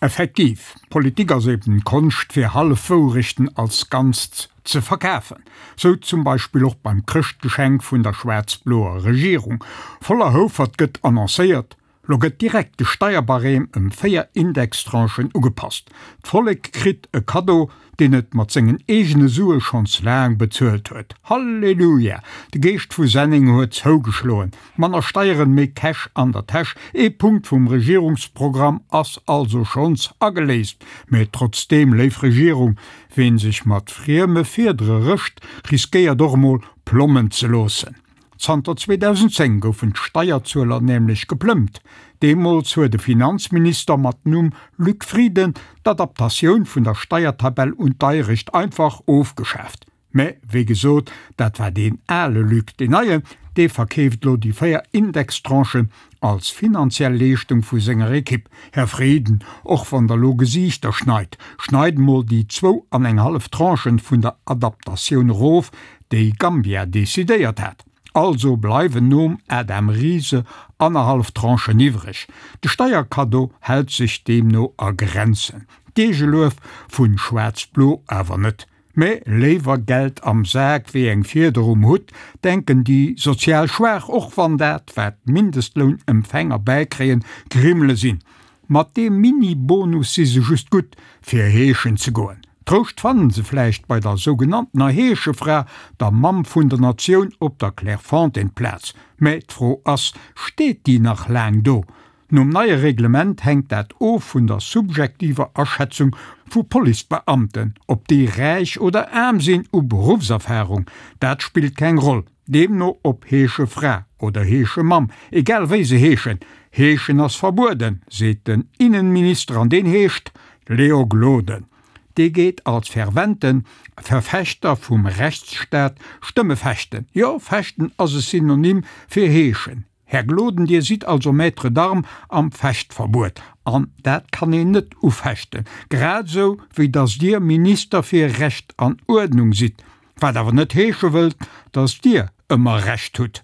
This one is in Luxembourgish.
Effektiv, Politik ass eben d'Konscht fir Hallefwourechten als Ganzt ze verkafen. Sou zum Beispill och beim Chrëschtgeschenk vun der schwaarz-bloer Regierung. Voller Houfert gëtt annoncéiert, Lo gëtt direkt de Steierbarème ëm 4 Indextranchen ugepasst. D'Vollek kritt e Kaddo, deen et mat sengen eegene Sue schonns laang bezuelt huet. Halleluja! De Geescht vu Senneng huet zougeschloen. Manner Steieren, méi Cash an der Täsch. Ee Punkt vum Regierungsprogramm ass also schonns ageléist. Mä trotzdeem, léif Regierung, ween sech mat frieme Fiedere rëscht, riskéiert och emol plommen ze loossen. Zanter 2010 goufen d'Steierzueler nämlech geplëmmt. Deemools huet e Finanzminister mat Numm Luc Frieden d'Adaptatioun vun der Steiertabell un d'Deierecht einfach ofgeschaaft. Mä wéi gesot, dat war deen ale Luc. Deen neien, dee verkeeft lo déi 4 Indextranchen als finanziell Leeschtung vu senger Ekipp. Här Frieden, och wann der lo Gesiichter schneit, schneit mol déi zwou an eng hallef Tranchen vun der Adaptatioun erof, déi Gambia decidéiert hat. Also bleiwen nom Adam Riese annerhallef Tranchen iwwreg. De Steierkaddo hält sech deemno a Grenzen. D'Eegeluef vun Schwaarz-Blo awer net. Mä léiwer Geld am Sak wéi eng Fieder um Hutt, denken déi sozial Schwaach, och wann dat, wat d'Mindestlounempfänger bäikréien, Grimmele sinn. Mat deem Mini-Bonus si se just gutt, fir heeschen ze goen. Trouscht fannen se vläicht bei der sougenanntener Heeschefra, der Mamm vun der Natioun op der Clairefontaine-Plaz. Mä d'Fro ass, Steet déi nach laang do? Nom neie Reglement hänkt dat of vun der subjektiver Aschätzung vu Policebeamten, ob déi räich oder aarm sinn u Beruffserfarung, dat spillt keng Roll. Deemno ob Heeschefra oder Heeschemamm, egal wéi se heeschen, Heeschen ass verbueden, seet den Innenminister an deen heescht Léo Gloden. Dee geet als fervente Verfechter vum Rechtsstaat Stëmme fechten. Jo, fechten ass e Synonym fir heeschen. Här Gloden, Dir sidd also Maître d'armes am Fechtverbuet, an dat kann een net ufechten, grad esou wéi datt Dir Minister fir Recht an Uerdnung sidd, wat awer net heesche wëllt, datt Dir ëmmer Recht hutt.